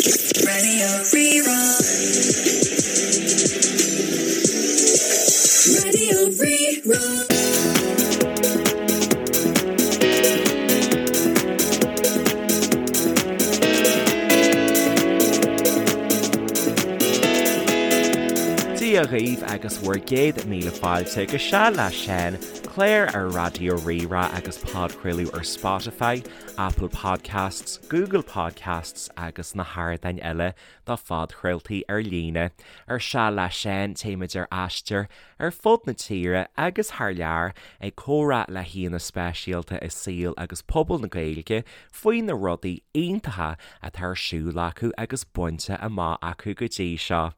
Raidió Rí-Rá. Raidió Rí-Rá. Dia dhaoibh agus bhur gcéad míle fáilte go Seal le Seán, clár ar Raidió Rí-Rá agus podchraoladh ar Spotify, Apple Podcasts, Google Podcasts agus na hardáin eile do phodchraoltaí ar líne. Ar Seal le Seán, téimid ar aistear ar fud na tíre agus thar lear ag comhrá le haíonna speisialta i saol agus pobal na Gaeilge faoi na rudaí iontacha atá ar siúl acu agus bainte amach acu go dtí seo.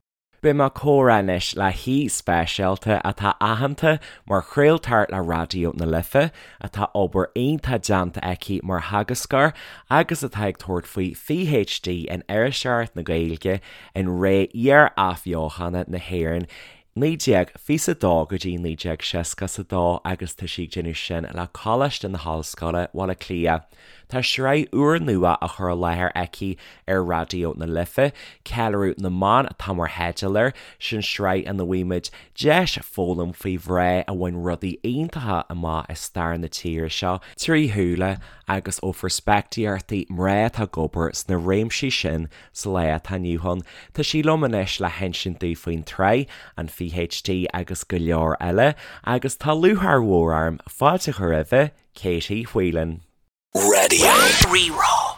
Beidh mé ag comhrá anois le haoi speisialta atá aitheanta mar chraoltóir le Raidió na Life, atá obair iontach déanta aici mar theagascóir agus atá ag tabhairt faoi PhD in Iriseoireacht na Gaeilge in ré iar-athbheochana na hÉireann 1922 go dtí 1962 agus tá sí ag déanamh sin le Coláiste na hOllscoile, Baile Átha Cliath. Tá sraith úrnua á chur i láthair aici ar Raidió na Life, Ceiliúradh na mBan atá mar theideal air, sin sraith ina bhfaighimid deis foghlaim faoi mhná a bhain rudaí iontacha amach i stair na tíre seo trí shúile agus ó pheirspictíochtaí mná atá ag obair sna réimsí sin sa lá atá inniu ann. Tá sí liom anois le hinsint dúinn faoin tsraith, an PhD agus go leor eile agus tá lúcháir mhór orm fáilte a chur roimhe, Katie Whelan. Raidió Rí-Rá.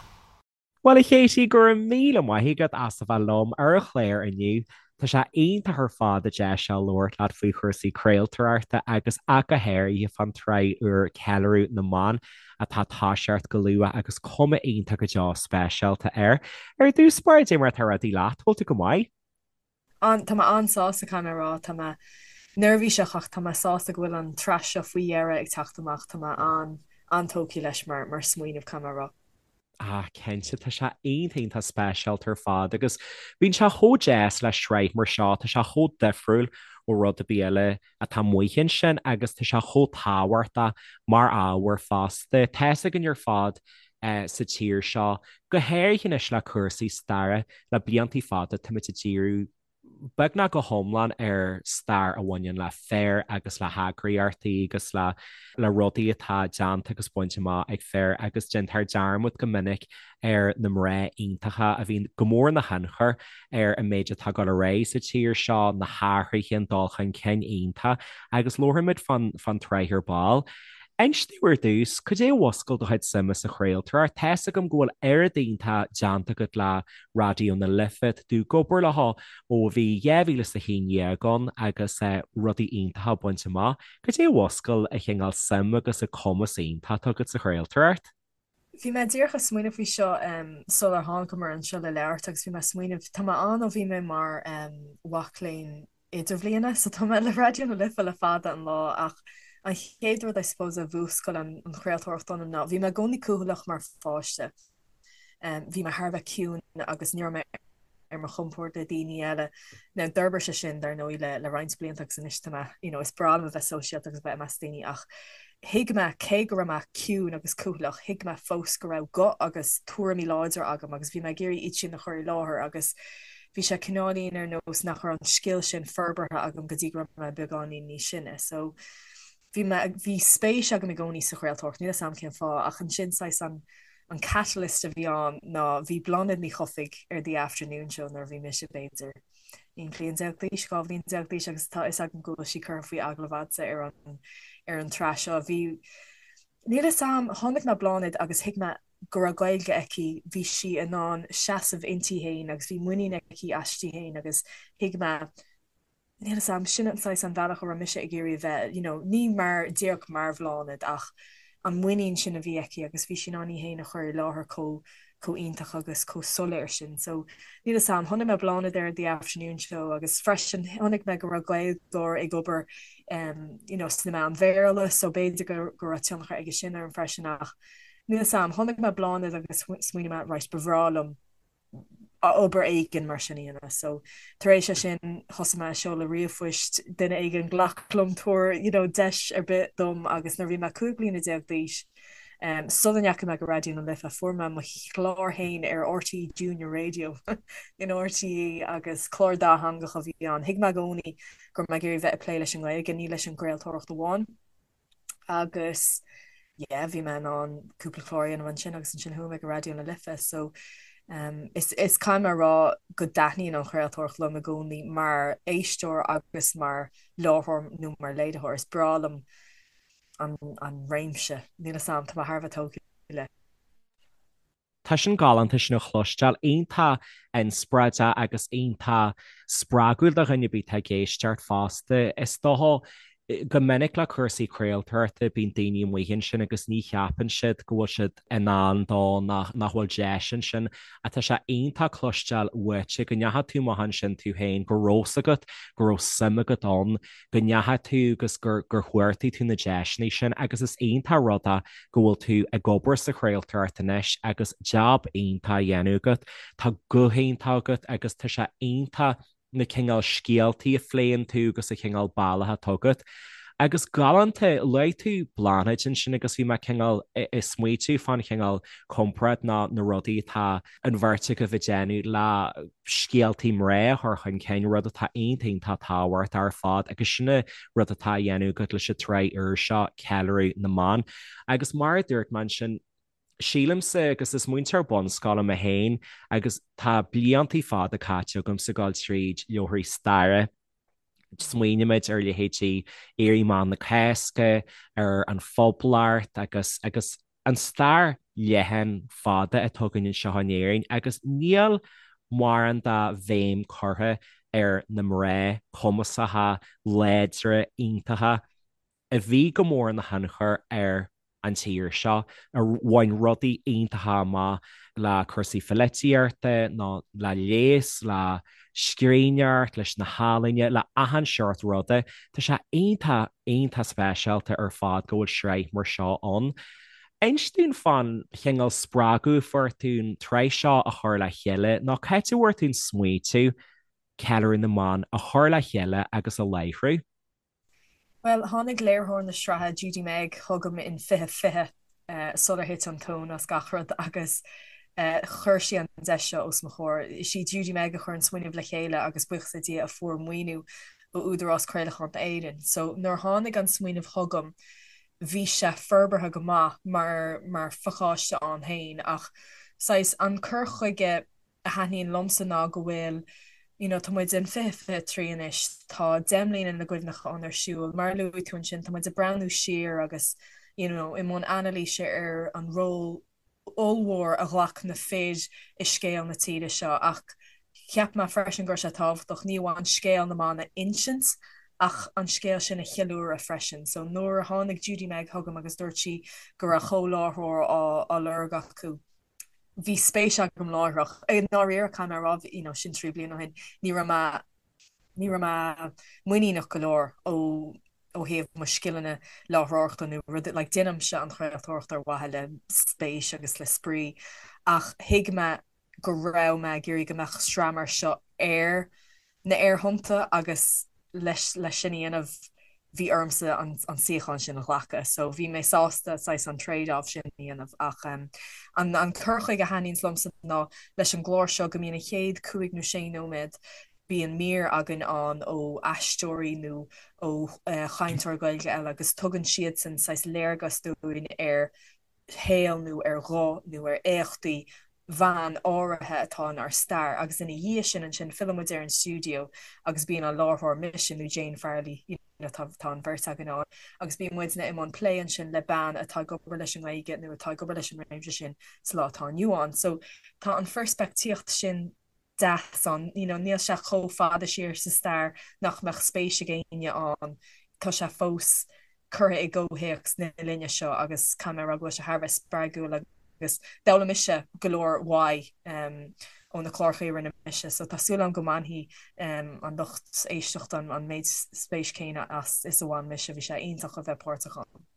Bhuel a Katie, go raibh míle maith agat as a bheith liom ar an chlár inniu. Tá sé iontach ar fad an deis seo labhairt leat faoi chúrsaí craoltóireachta agus ach go háirithe fán tsraith úr Ceiliúradh na mBan atá ag toiseacht go luath agus cuma iontach go deo speisialta air. Ar dtús báire, cad é mar atá rudaí leat, bhfuil tú go maith? An, tá mé an-sásta, caithfidh mé a rá. Tá mé neirbhíseach ach tá mé sásta go bhfuil an tsraith seo faoi dheireadh ag teacht amach. Tá mé an, an-tógtha leis mar, mar smaoineamh, caithfidh mé a rá. Ah, cinnte, tá sé iontach, iontach speisialta ar fad agus bíonn sé chomh deas le sraith mar seo, tá sé chomh difriúil ó rud ar bith eile atá amuigh ansin agus tá sé chomh tábhachtach mar ábhar fosta. Tá's againn ar fad sa tír seo, go háirithe anois le cúrsaí staire, le bliantaí fada táimid ag díriú beagnach go hiomlán ar stair a bhaineann le fir agus le heagraíochtaí agus le le rudaí atá déanta agus bainte amach ag fir agus déantar dearmad go minic ar na mná iontacha a bhíonn go mór ina thionchar ar an méid atá ag dul ar aghaidh sa tír seo, na hathruithe, an dul chun cinn iontach agus labharfaimid fán fán tsraith ar ball. Inis domh ar dtús, cad é a mhúscail do chuid suime sa chraoltóireacht? Tá's agam go bhfuil oiread iontach déanta agat le Raidió na Life, tá tú ag obair leo ó bhí 2011 ann agus rudaí iontacha bainte amach. Cad é a mhúscail an cineál suim agus an cumas iontach atá agat sa chraoltóireacht? Bhí mé díreach ag smaoineamh faoi seo sular thángamair anseo le labhairt agus bhí mé ag smaoineamh, tá mé ann ó bhí mé mar mhac léinn idirbhliana so tá mé le Raidió na Life le fada an lá ach an chéad rud I suppose a mhúscail an chraoltóireacht ionam ná bhí mé i gcónaí cúthaileach mar pháiste. Bhí mé thar a bheith ciúin agus ní raibh mé ar mo chompord le daoine eile. Now d'fhorbair sé sin dar ndóigh le le roinnt blianta agus anois tá mé you know is breá liom a bheith sóisialta agus a bheith i measc daoine ach thuig mé cé go raibh mé ciúin agus cúthaileach thuig mé fós go raibh guth agus tuairimí láidre agam agus bhí mé ag iarraidh iad sin a chur i láthair agus bhí sé cineáilín ar nós nach raibh an scil sin forbartha agam go dtí go raibh mé beagáinín níos sine. So bhí mé, bhí spéis agam i gcónaí sa chraoltóireacht, níl 'fhios a'm cén fáth, ach ansin saghas an, an catalyst a bhí ann ná bhí Bláthnaid Ní Chofaigh ar The Afternoon Show nuair a bhí mise b'fhéidir 11 bliain d'aois, 12 bhliain d'aois agus tá 'fhios agam go bhfuil sí curtha faoi agallamh a'dsa ar an, ar an tsraith seo. Bhí, níl 'fhios a'm, chonaic mé Bláthnaid agus thuig mé go raibh Gaeilge aici, bhí sí in ann seasamh inti féin agus bhí muinín aici aisti féin agus thuig mé, níl 'fhios a'm, sin an saghas an bhealach a raibh mise ag iarraidh a bheith, you know, ní mar, díreach mar Bhláthnaid ach an muinín sin a bhí aici agus bhí sí in ann í féin a chur i láthair chomh, chomh iontach agus chomh soiléir sin. So, níl 'fhios a'm, chonaic mé Bláthnaid ar The Afternoon Show agus freisin chonaic mé go raibh Gaeilgeoir ag obair em, you know, sna meáin Bhéarla so b'fhéidir go, go raibh tionchar aige sin orm freisin ach níl 'fhios a'm, chonaic mé Bláthnaid agus smaoinigh mé, right, ba bhreá liom obair éigin mar sin a dhéanamh. So tar éis é sin thosaigh mé ag seoladh ríomhphoist, duine éigin glac liom, tabhair you know deis ar bith dom agus nuair a bhí mé 15 bliana d'aois. Sula ndeachaigh mé go Raidió na Life, fuair mé mo chlár féin ar RTÉ Junior Radio in RTÉ agus clár dátheangach a bhí ann. Thuig mé i gcónaí go raibh mé ag iarraidh bheith ag plé leis an nGaeilge, ní leis an gcraoltóireacht amháin. Agus yeah, bhí mé in ann cúpla clár a dhéanamh ansin agus ansin chuaigh mé go Raidió na Life. So um, is, is caithfidh mé a rá go dtaitníonn an chraoltóireacht liom i gcónaí mar éisteoir agus mar láithreoir nó mar léiritheoir. Is breá liom an, an réimse. Níl a fhios a'm, tá mé thar a bheith tógtha le. Tá sin galánta sin a chloisteáil, iontach inspioráideach agus iontach spreagúil do dhuine ar bith atá ag éisteacht fosta. Is dócha, go minic le cúrsaí craoltóireachta bíonn daoine amuigh ansin agus ní cheapann siad go bhfuil siad in ann dó nach nach bhfuil deis ansin. Ach tá sé iontach cloisteáil uaitse go ndeachaigh tú amach ansin tú féin, go raibh fhios agat, go raibh suim agat ann, go ndeachaigh tú agus gur gur chuartaigh tú na deiseanna sin agus is iontach rud é go bhfuil tú ag obair sa chraoltóireacht anois agus jab iontach á dhéanamh agat. Tá guth iontach agat agus tá sé iontach na cineál scéaltaí a phléann tú agus an cineál bealach atá agat. Agus galánta, luaigh tú Bláthnaid ansin agus bhí mé cineál ag smaoitiú fán chineál comparáid ná na rudaí atá an bheirt agaibh ag déanamh le scéaltaí mná a chur chun cinn, rud atá iontach iontach tábhachtach ar fad agus sin an rud atá á dhéanamh agat leis an tsraith úr seo, Ceiliúradh na mBan. Agus mar a dúirt mé ansin, sílimse, agus is múinteoir bunscoile mé féin agus tá bliantaí fada caite agamsa ag dul tríd leabharthaí staire, smaoinímid ar leithéidí Éirí Amach na Cásca, ar an Phoblacht agus agus an stair leathan fada atá againn anseo in Éirinn agus níl mórán de bhéim curtha ar na mná cumasacha, láidre, iontacha a bhí go mór ina thionchar ar an tír seo, a bhain rudaí iontacha amach le cúrsaí pholaitíochta nó le leigheas, le scríbhneoireacht, leis na healaíona, le achan seort ruda. Tá sé iontach, iontach speisialta ar fad go bhfuil sraith mar seo ann. Inis dúinn fán chineál spreagadh a fuair tú an tsraith seo a chur le chéile nó cá háit a bhfuair tú an smaoitiú Ceiliúradh na mBan a chur le chéile agus a láithriú? Bhuel, tháinig léiritheoir na sraithe, Judy Meg, chugam in 2020 sular thit an tóin as gach rud agus chuir sí an deis seo os mo chomhair. Is í Judy Meg a chuir an smaoineamh le chéile agus buíochas le Dia a fuair maoiniú ó Údarás Craolacháin Éireann. So nuair a tháinig an smaoineamh chugam bhí sé forbartha go maith mar mar phacáiste ann féin ach saghas an cur chuige a thaitníonn liomsa ná go bhfuil you know tá muid in 2023 anois, tá Deich mBliana na gCuimhneachán ar siúl, mar a luaigh tú ansin, tá muid ag breathnú siar agus you know i mbun anailíse ar an ról ollmhór a ghlac na fir i scéal na tíre seo ach cheap mé freisin go raibh sé tábhachtach ní amháin scéal na mban a insint ach an scéal sin a cheiliúradh freisin. So nuair a tháinig Judy Meg chugam agus dúirt sí go raibh comhláithreoir á lorg acu, bhí spéis agam láithreach. I ndáiríre, caithfidh mé a rá, you know, sin 3 bliana ó shin, ní raibh mé, ní raibh mé muiníneach go leor ó ó thaobh mo scileanna láithreoireachta nó rud, like, déanaimse an chraoltóireacht ar mhaithe le spéis agus le spraoi ach thuig mé go raibh mé ag iarraidh go mbeadh sraith mar seo ar na aerthonnta agus leis leis sin a dhéanamh bhí ormsa an an suíochán sin a ghlacadh so bhí mé sásta saghas an trade off sin a dhéanamh ach an an cur chuige a thaitníonns liomsa ná leis an gclár seo go mbíonn an chéad cúig nó sé nóiméad bíonn mír againn ann ó aisteoirí nó ó chainteoir Gaeilge eile agus tugann siadsan saghas léargas dúinn ar shaol nó ar ghuth nó ar éachtaí bhean áirithe atá inár stair agus ina dhiaidh sin ansin filleann muid ar an stiúideo agus bíonn an láithreoir, mise nó Jane Farrelly, you know tá tá an bheirt againn ann agus bíonn muidne i mbun plé ansin le bean atá ag obair leis an nGaeilge nó atá ag obair leis an réimse sin sa lá atá inniu ann. So tá an pheirspictíocht sin deas ann, you know níl sé chomh fada siar sa stair nach mbeadh spéis ag éinne ann, tá sé fós curtha i gcomhthéacs na linne seo agus caithfidh mé a rá go bhfuil sé thar a bheith spreagúil agus d'fhoghlaim mise go leor uaidh ó na cláracha a rinne mise so tá súil agam go mbainfidh an lucht éisteachta an méid spéis céanna as is a bhain mise, bhí sé iontach a bheith páirteach ann.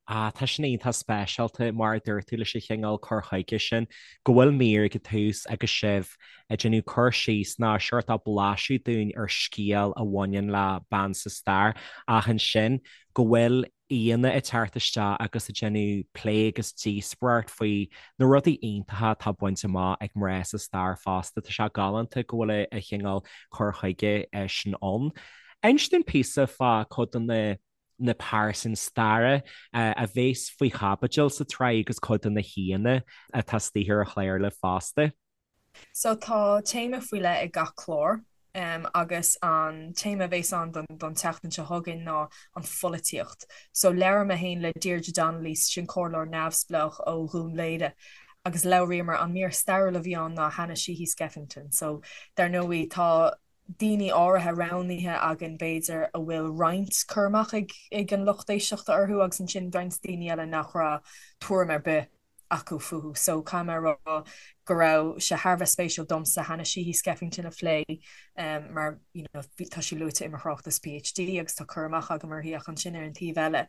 Ah, tá sin iontach speisialta, mar a dúirt tú, leis an chineál cur chuige sin, go bhfuil mír ag an tús agus sibh ag déanamh cur síos nó seort blaiseadh dúinn ar scéal a bhaineann le bean sa stair, ach ansin go bhfuil. aíonna ag teacht isteach agus ag déanamh plé agus díospóireacht faoi na rudaí iontacha atá bainte amach ag mná sa stair fosta. Tá sé galánta go bhfuil an cineál cur chuige sin ann. Inis dúinn píosa fá cuid de na na pearsain staire a bhéas faoi chaibidil sa tsraith agus cuid de na haíonna atá istigh ar an chlár libh fosta. So tá téama faoi leith ag gach clár agus an téama a bhéas ann don don tseachtain seo chugainn ná an pholaitíocht. So labhair mé féin le Deirdre Donnelly, sin comhairleoir neamhspleách ó Dhún Laoghaire agus labhraíomar, an mír stairiúil a bhí ann ná Hanna Sheehy Skeffington. So dar ndóigh tá daoine áirithe roghnaithe againn b'fhéidir a bhfuil roinnt cur amach ag ag an lucht éisteachta orthu agus ansin roinnt daoine eile nach raibh tuairim ar bith acu fúthu. So caithfidh mé a rá go raibh sé thar a bheith spéisiúil domsa Hanna Sheehy Skeffington a phlé mar you know tá sí luaite i mo thráchtas PhD agus tá cur amach agam uirthi ach ansin ar an taobh eile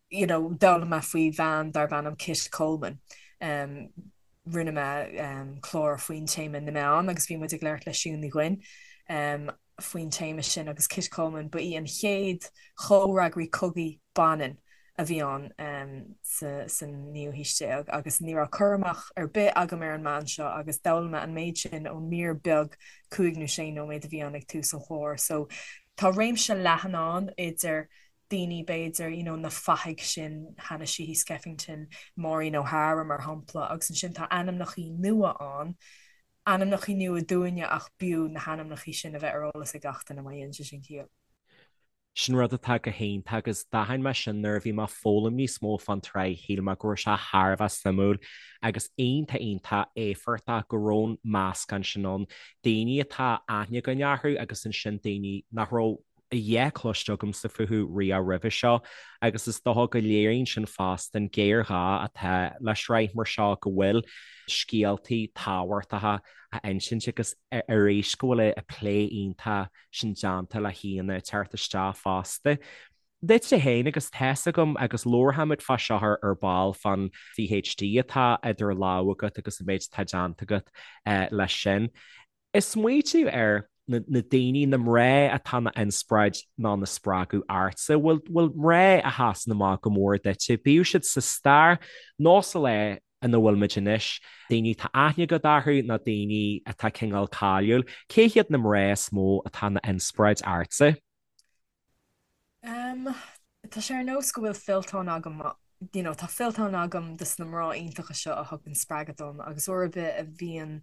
you know d'fhoghlaim mé faoi bhean darb ainm Kit Coleman. Rinne mé clár faoin téama na meáin agus bhí muid ag labhairt le Siún Ní Dhuinn faoin téama sin agus Kit Coleman, ba í an chéad chomhfhreagraí cogaidh baineann a bhí ann sa naoú haois déag agus ní raibh cur amach ar bith agam ar an mbean seo agus d'fhoghlaim mé an méid sin ón mír beag cúig nó sé nóiméad a bhí ann ag tús an chláir. So tá réimse leathan ann idir daoine b'fhéidir, you know na fathaigh sin, Hanna Sheehy Skeffington, Maureen O'Hara mar shampla agus ansin tá ainmneachaí nua ann ainmneachaí nua dúinne ach b'fhiú na hainmneachaí sin a bheith ar eolas ag gach duine má dhéanann sé sin ciall. Sin rud atá go hiontach agus d'aithin mé sin nuair a bhí mé ag foghlaim níos mó fán tsraith, shíl mé go raibh sé thar a bheith suimiúil agus iontach iontach éifeachtach go raibh an meascán sin ann, daoine atá aithne againn orthu agus ansin daoine nach raibh a dhath cloiste agamsa fúthu riamh roimhe seo agus is dócha go léiríonn sin fosta an géarghá atá le sraith mar seo, go bhfuil scéaltaí tábhachtacha á insint agus arís go bhfuil an plé iontach sin déanta le haíonna ag teacht isteach fosta. Duitse féin agus tá's agam agus labharfaimid fá seo ar ball fán PhD atá idir lámha agat agus an méid atá déanta agat leis sin. Ag smaoitiú ar na daoine, na mná atá ina n-inspioráid nó ina spreagadh ortsa, bhfuil bhfuil mná a sheasann amach go mór duitse, bíodh siad sa stair nó sa lá ina bhfuil muid anois, daoine atá aithne agat orthu nó daoine atá cineál cáiliúil, cé hiad na mná is mó atá ina n-inspioráid ortsa? Em, tá sé ar nós go bhfuil fillteán agam, you know, tá fillteán agam de na mná iontacha seo a thugann spreagadh dom agus uair ar bith a bhíonn,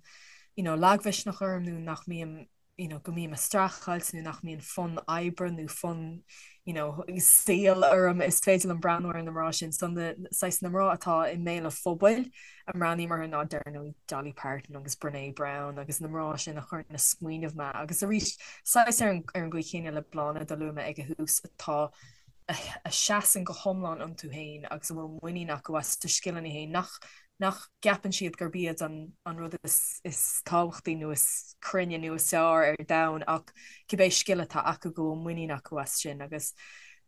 you know, lagmhisneach orm nó nach mbím, you know, go mbím ag streachailt nó nach mbíonn fonn oibre nó fonn, you know, saoil orm, is féidir liom breathnú ar na mná sin. So na, saghas na mná atá i mbéal an phobail, a mbreathnaím orthu ná dar ndóigh Dolly Parton agus Brené Brown agus na mná sin a chuireann ag smaoineamh mé agus arís saghas ar an gcaoi chéanna le Bláthnaid a luaigh mé ag an thús atá a seasann go hiomlán iontu féin agus a bhfuil muinín acu as a scileanna féin nach nach gceapann siad gurb iad an an rud is is tábhachtaí nó is cruinne nó is fearr ar domhan ach cibé scil atá acu go bhfuil muinín acu as sin agus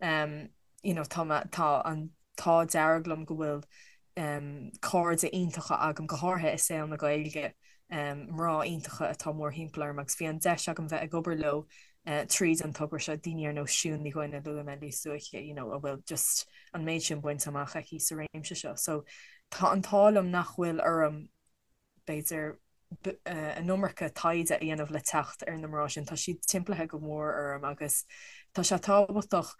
um, you know, tá tá an t-ádh dearg liom go bhfuil cairde iontacha agam, go háirithe i saol na Gaeilge, mná iontacha atá mórthimpeall orm agus bhí an deis agam bheith ag obair leo tríd an togra seo, daoine ar nós Siún Ní Dhuinn a luaigh mé níos luaithe, you know, a bhfuil just an méid sin bainte amach aici sa réimse seo. So tá an t-ádh liom nach bhfuil orm b'fhéidir, an iomarca taighde a dhéanamh le teacht ar na mná sin. Tá siad timpeallaithe go mór orm agus tá sé tábhachtach,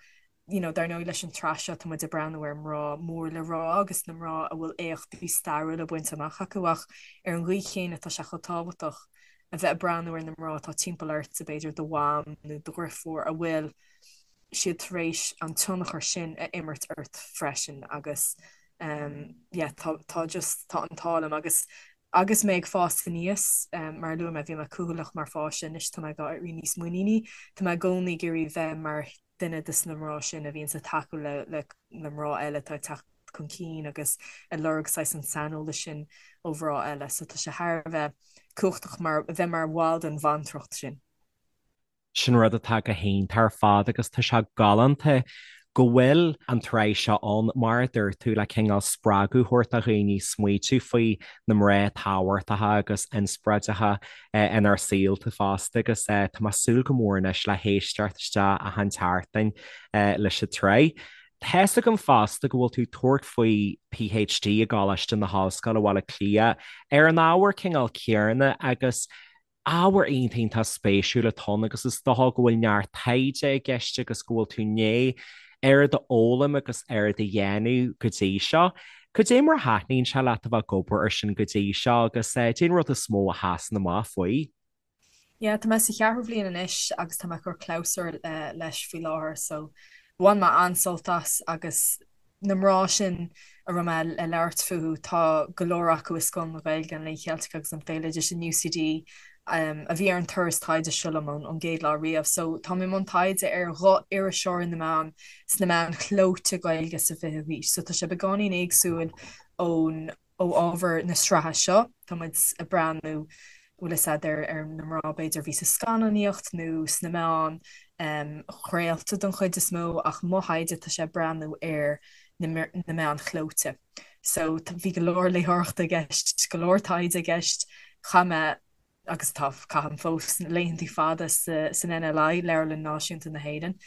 you know, dar ndóigh leis an tsraith seo tá muid ag breathnú ar mná mór le rá agus na mná a bhfuil éachtaí stairiúla bainte amach acu ach ar an gcaoi chéanna tá sé chomh tábhachtach a bheith ag breathnú ar na mná atá timpeall ortsa, b'fhéidir do mham nó do dheirfiúr a bhfuil siad tar éis an tionchar sin a imirt ort freisin agus yeah tá tá just tá an t-ádh liom agus agus mé ag fás aníos mar a luaigh mé bhí mé cúthaileach mar pháiste anois tá mé ag éirí níos muiníní tá mé i gcónaí ag iarraidh bheith mar duine de na mná sin a bhíonns ag tacú le le le mná eile atá ag teacht chun cinn agus ag lorg saghas an saineolas sin ó mhná eile so tá sé thar a bheith cumhachtach mar bheith mar bhall den bhantracht sin. Sin rud atá go hiontach ar fad agus tá sé galánta go bhfuil an tsraith seo ann, mar a dúirt tú, le cineál spreagadh a thabhairt do dhaoine smaoitiú faoi na mná tábhachtacha agus inspioráideacha inár saolta fosta agus tá mé ag súil go mór anois le héisteacht isteach achan tseachtain leis an tsraith. Tá's agam fosta go bhfuil tú ag tabhairt faoi PhD i gColáiste na hOllscoile, Baile Átha Cliath, ar an ábhar cineál céanna agus ábhar iontach iontach spéisiúil atá ann agus is dócha go bhfuil neart taighde i gceist agus go bhfuil tú i ndiaidh oiread a fhoghlaim agus oiread a dhéanamh go dtí seo. Cad é mar a thaitníonn sé leat a bheith ag obair ar sin go dtí seo agus cad é an rud is mó a sheasann amach faoi? Yeah, tá mé sa cheathrú bhliain anois agus tá mé ag cur clabhsúr leis faoi láthair so bhain mé an-sult as agus na mná sin a raibh mé ag labhairt fúthu, tá go leor acu i Scoil na Gaeilge, an Léinn Cheiltigh agus an Bhéaloidis in UCD a bhí ar an turas taighde seo liom ón gcéad lá riamh. So tá mé i mbun taighde ar ghuth iriseoirí na mban sna meáin chlóite Gaeilge sa 20ú haois. So tá sé beagáinín éagsúil ón ó ábhar na sraithe seo, tá muid ag breathnú, bhfuil fhios a'd, ar na mná b'fhéidir a bhí sa scannánaíocht nó sna meáin chraolta den chuid is mó ach mo thaighde tá sé ag breathnú ar na meáin chlóite. So bhí go leor léitheoireachta i gceist, go leor taighde i gceist, chaith mé agus tá, caithim fós, laethantaí fada san NLI, Leabharlann Náisiúnta na hÉireann.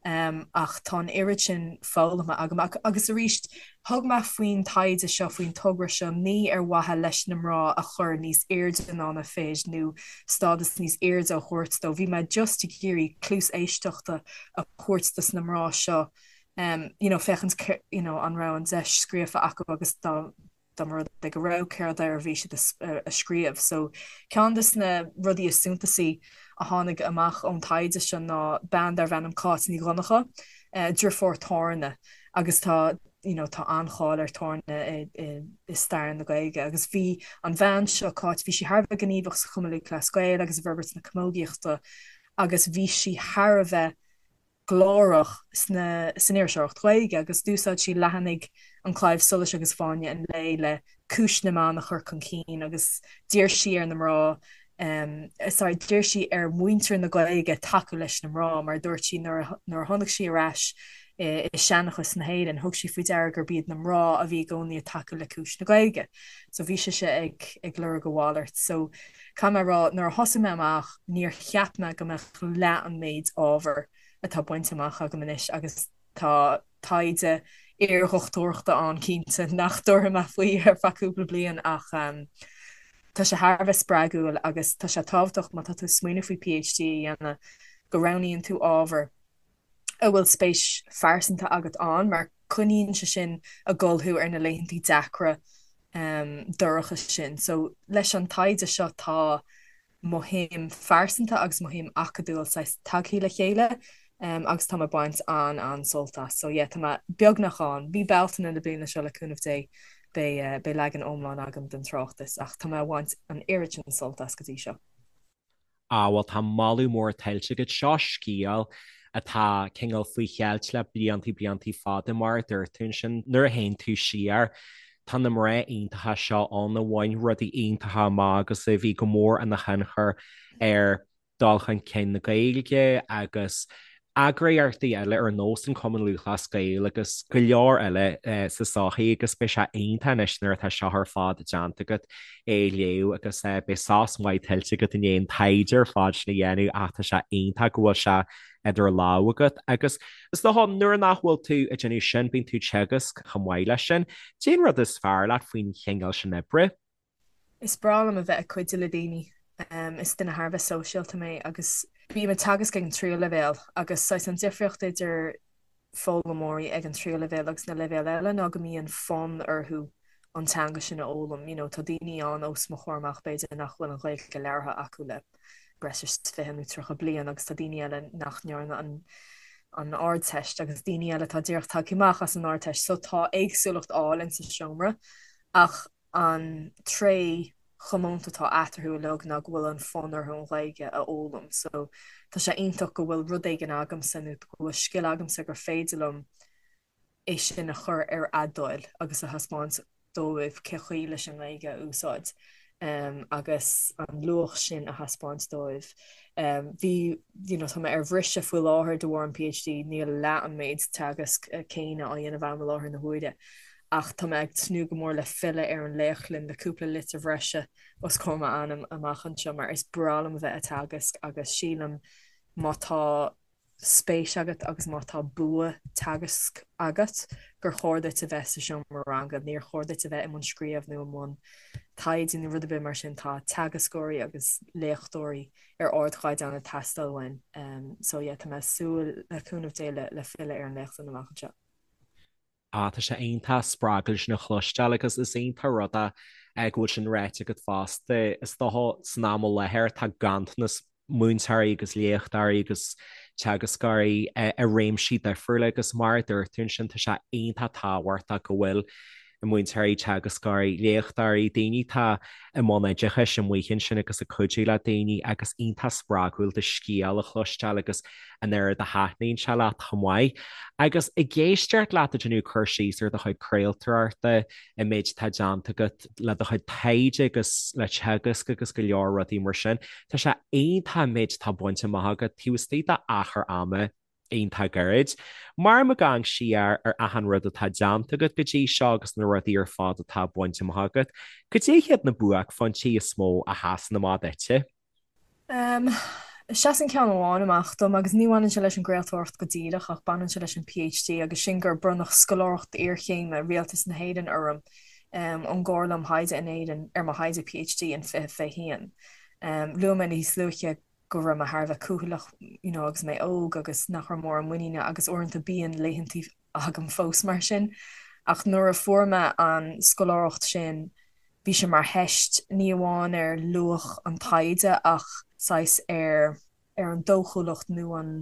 Ach tá an oiread sin foghlamtha agam. Agus arís, thug mé faoin taighde seo, faoin togra seo, ní ar mhaithe leis na mná a chur níos airde ná na fir nó stádas níos airde a thabhairt dóibh. Bhí mé just ag iarraidh cluas éisteachta a thabhairt dos na mná seo, you know, féachaint, you know, an raibh an deis scríofa acu agus dá dá mba rud é go raibh, céard air a bhí siad a scríobh. So, ceann de na rudaí is suntasaí a tháinig amach ón taighde seo ná bean darbh ainm Cáit Ní Dhonncha, deirfiúr Thorna, agus tá, you know, tá an-cháil ar Thorna i, i, i stair na Gaeilge. Agus bhí an bhean seo, Cáit, bhí sí thar a bheith gníomhach sa Chumann Lúthchleas Gael agus i bhforbairt na camógaíochta agus bhí sí thar a bheith glórach sna san iriseoireacht Ghaeilge agus d'úsáid sí leathanaigh An Claidheamh Soluis agus Fáinne an Lae le cúis na mban a chur chun cinn agus d'iarr sí ar na mná sorry d'iarr sí ar mhuintir na Gaeilge tacú leis na mná mar dúirt sí nuair a nuair a tháinig sí ar ais i seanchas na hÉireann thug sí faoi deara gurb iad na mná a bhí i gcónaí ag tacú le cúis na Gaeilge. So bhí sise ag ag lorg a mhalairt. So Caithfidh mé a rá, nuair a thosaigh mé amach, níor cheap mé go mbeadh leath an méid ábhair atá bainte amach agam anois agus tá taighde iardhochtúireachta ann cinnte nach dtabharfaidh mé faoi ar feadh cúpla bliain ach tá sé thar a bheith spreagúil agus tá sé tábhachtach má tá tú ag smaoineamh faoi PhD a dhéanamh go roghnaíonn tú ábhar a bhfuil spéis phearsanta agat ann mar coinníonn sé sin ag gabháil thú ar na laethantaí deacra dorcha sin. So leis an taighde seo tá mo shuim phearsanta agus mo shuim acadúil saghas tagthaí le chéile agus tá mé ag baint an-an-sult as. So yeah tá mé beagnach ann. Mí Bealtaine na bliana seo le cúnamh Dé beidh beidh leagan iomlán agam den tráchtas ach tá mé ag baint an oiread sin sult as go dtí seo. Á, bhuel, tá moladh mór tuillte agat. Seo scéal atá cineál faoi cheilt le bliantaí, bliantaí fada, mar a dúirt tú ansin. Nuair a théann tú siar, tá na mná iontacha seo ann a bhain rudaí iontacha amach agus a bhí go mór ina thionchar ar dul chun cinn na Gaeilge agus eagraíochtaí eile ar nós an Cumann Lúthchleas Gael agus go leor eile sa tsochaí agus beidh sé iontach anois nuair atá seo ar fad déanta agat é a léamh agus beidh sos maith tuillte agat i ndiaidh an taighde ar fad sin a dhéanamh ach tá sé iontach go bhfuil sé idir lámha agat agus is dócha nuair nach bhfuil tú ag déanamh sin bíonn tú ag teagasc chomh maith leis sin. Cén rud is fearr leat faoin chineál sin oibre? Is breá liom a bheith ag cuidiú le daoine. Is duine thar a bheith sóisialta mé agus bím ag teagasc ag an tríú leibhéal agus saghas an difríocht idir foghlaimeoirí ag an tríú leibhéal agus na leibhéil eile ná go mbíonn fonn orthu an teanga sin a fhoghlaim. You know, tá daoine ann os mo chomhair amach b'fhéidir nach bhfuil an Ghaeilge labhartha acu le breis is 20 nó 30 bliain agus tá daoine eile nach ndearna an an Ardteist agus daoine eile atá díreach tagtha amach as an Ardteist. So tá éagsúlacht álainn sa seomra ach an tréith chomónta atá eatarthu uilig ná go bhfuil an fonn orthu an Ghaeilge a fhoghlaim. So tá sé iontach go bhfuil rud éigin agamsa nó go bhfuil scil agamsa gur féidir liom é sin a chur ar a dtoil agus a thaispeáint dóibh cé chaoi leis an nGaeilge a úsáid agus an luach sin a thaispeáint dóibh. Bhí, you know, tá mé ar bhriseadh faoi láthair de bharr an PhD, níl leath an méid teagasc céanna á dhéanamh agam i láthair na huaire. Ach tá mé ag tnúth go mór le filleadh ar an léachtlann le cúpla litir bhreise os comhair m'ainm amach anseo mar is breá liom a bheith ag teagasc agus sílim má tá. spéis agat agus má tá bua teagaisc agat gur chóir duit a bheith sa seomra ranga. Níor chóir duit a bheith i mbun scríobh nó i mbun taighde nó rud ar bith mar sin. Tá teagascóirí agus léachtóirí ar ardchaighdeán ag teastáil uainn. So yeah, tá mé ag súil le cúnamh Dé le filleadh ar an léachtlann amach anseo. Ah, tá sé iontach spreagúil sin a chloisteáil agus is iontach rud é go bhfuil sin ráite agat fosta. Is dócha san am i láthair tá ganntanas múinteoirí agus léachtóirí agus teagascóirí i réimsí difriúla agus mar a dúirt tú ansin tá sé iontach tábhachtach go bhfuil múinteoirí, teagascóirí, léachtóirí, daoine atá i mbun oideachais amuigh ansin agus ag cuidiú le daoine agus iontach spreagúil do scéal a chloisteáil agus an oiread a thaitníonn sé leat chomh maith. Agus ag éisteacht leat ag déanamh cur síos ar do chuid craoltóireachta, an méid atá déanta agat le do chuid taighde agus le teagasc agus go leor rudaí mar sin, tá sé iontach an méid atá bainte amach agat taobh istigh d'achar ama iontach gairid. Mar ag amharc siar ar achan rud atá déanta agat go dtí seo agus na rudaí ar fad atá bainte amach agat, cad é hiad na buaicphointí is mó a sheasann amach duitse? Seasann ceann amháin amach dom agus ní bhaineann sé leis an gcraoltóireacht go díreach ach baineann sé leis an PhD agus sin gur bronnadh scoláireacht iarchéime Rialtas na hÉireann orm ón gComhairle um Thaighde in Éirinn ar mo thaighde PhD in 2021. Luaigh mé níos luaithe go raibh mé thar a bheith cúthaileach you know agus mé óg agus nach raibh mórán muiníne agus uaireanta bíonn laethantaí agam fós mar sin. Ach nuair a fuair mé an scoláireacht sin bhí sé mar theist ní amháin ar luach an taighde ach saghas ar ar an dóchúlacht nó an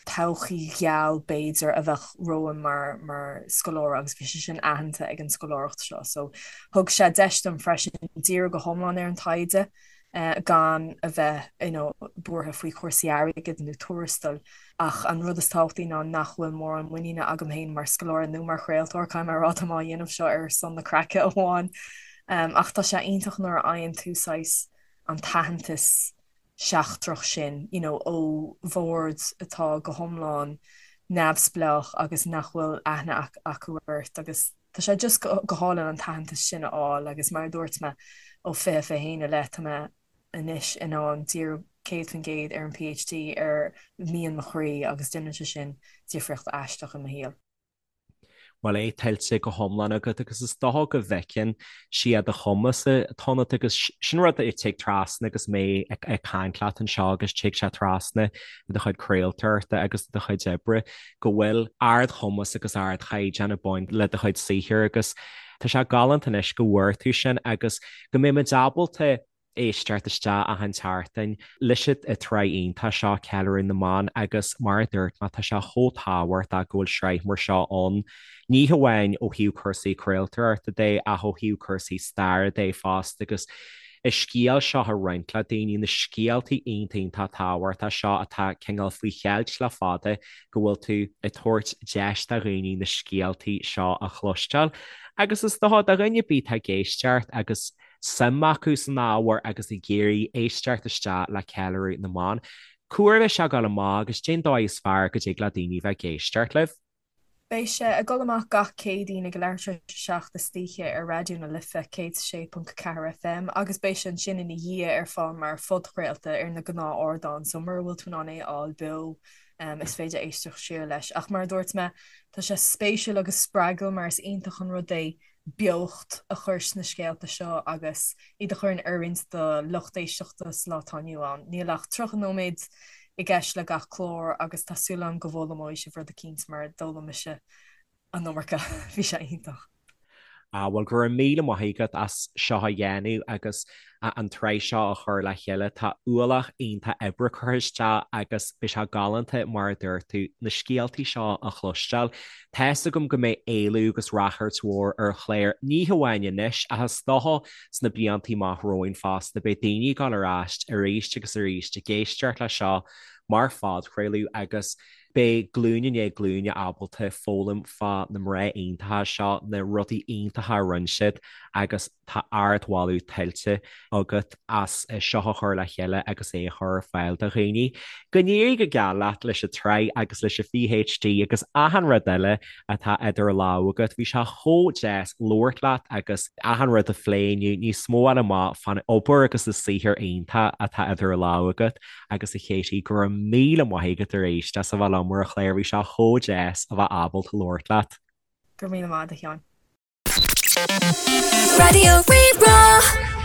todhchaí gheal b'fhéidir a bheadh romham mar mar scoláire agus bhí sé sin aitheanta ag an scoláireacht seo. So thug sé deis dom freisin díriú go hiomlán ar an taighde gan a bheith you know buartha faoi chúrsaí airgid nó tuarastail. Ach an rud is tábhachtaí ná nach bhfuil mórán muiníne agam féin mar scoláire nó mar chraoltóir, caithfidh mé a rá, tá mé á dhéanamh seo ar son na craice amháin. Ach tá sé iontach nuair a fhaigheann tú saghas an t-aitheantas seachtrach sin, you know, ó bhord atá go hiomlán neamhspleách agus nach bhfuil aithne acu ort agus tá sé just go hálainn an t-aitheantas sin a fháil agus mar a dúirt mé ó 2021 i leith tá mé anois in ann díriú 100% ar an PhD ar mian mo chroí agus déanann sé sin difríocht aisteach i mo shaol. Bhuel é tuillte go hiomlán agat agus is dócha go bhfeiceann siad do chumas atá ionat agus sin rud a tig trasna agus mé ag caint leat anseo agus tig sé trasna i do chuid craoltóireachta agus i do chuid oibre go bhfuil ardchumas agus ardchaighdeán ag baint le do chuid saothair agus tá sé galánta anois go bhfuair tú sin agus go mbeidh muid ábalta éisteacht isteach achan tseachtain leis an tsraith iontach seo, Ceiliúradh na mBan, agus mar a dúirt mé, tá sé chomh tábhachtach go bhfuil sraith mar seo ann, ní hamháin ó thaobh cúrsaí craoltóireachta de ach ó thaobh cúrsaí staire de fosta agus an scéal seo a roinnt le daoine, na scéaltaí iontach iontach tábhachtach seo atá cineál faoi cheilt le fada go bhfuil tú ag tabhairt deis do dhaoine na scéaltaí seo a chloisteáil agus is dócha do dhuine ar bith atá ag éisteacht agus suim acu san ábhar agus ag iarraidh éisteacht isteach le Ceiliúradh na mBan. Cá huair a bheidh sé ag dul amach agus cén dóigh is fearr go dtig le daoine bheith ag éisteacht libh. Beidh sé ag dul amach gach Céadaoin ag a leathuair tar éis a 7 istoíche ar Raidió na Life 106.4 FM agus beidh sé ansin ina dhiaidh ar fáil mar phodchraolta ar na gnáth-ardáin so mura bhfuil tú in ann é a fháil beo is féidir éisteacht siar leis. Ach mar a dúirt mé, tá sé spéisiúil agus spreagúil mar is iontach an rud é beocht a chur sna scéalta seo agus iad a chur in oiriúint do lucht éisteachta sa lá atá inniu ann. Níl ach 30 nóiméad i gceist le gach clár agus tá súil agam go bhfoghlaimeoidh sibh rud eicínt mar d'fhoghlaim mise an iomarca. Bhí sé iontach. Ah bhuel go raibh míle maith agat as seo a dhéanamh agus an tsraith seo a chur le chéile. Tá ualach iontach oibre curtha isteach agus beidh sé galánta, mar a dúirt tú, na scéaltaí seo a chloisteáil. Tá's agam go mbeidh éileamh agus ráchairt mhór ar an chlár, ní hamháin anois ach is dócha sna blianta amach romhainn fosta. Beidh daoine ag dul ar ais arís agus arís ag éisteacht leis seo mar phodchraoladh agus. Beidh glúin i ndiaidh glúine ábalta foghlaim fá na mná iontacha seo, na rudaí iontacha a rinne siad agus tá ardmholadh tuillte agat as seo a chur le chéile agus é a chur ar fáil do dhaoine. Go n-éirí go geal leat leis an tsraith agus leis an PhD agus achan rud eile atá idir lámha agat. Bhí sé chomh deas labhairt leat agus achan rud a phlé inniu, níos mó a fháil amach fán obair agus an saothar iontach atá idir lámha agat agus a Katie, go raibh míle maith agat arís as a bheith liom ar an chlár, bhí sé chomh deas a bheith ábalta labhairt leat. Go raibh míle maith agat a Sheáin. Raidió Rí-Rá.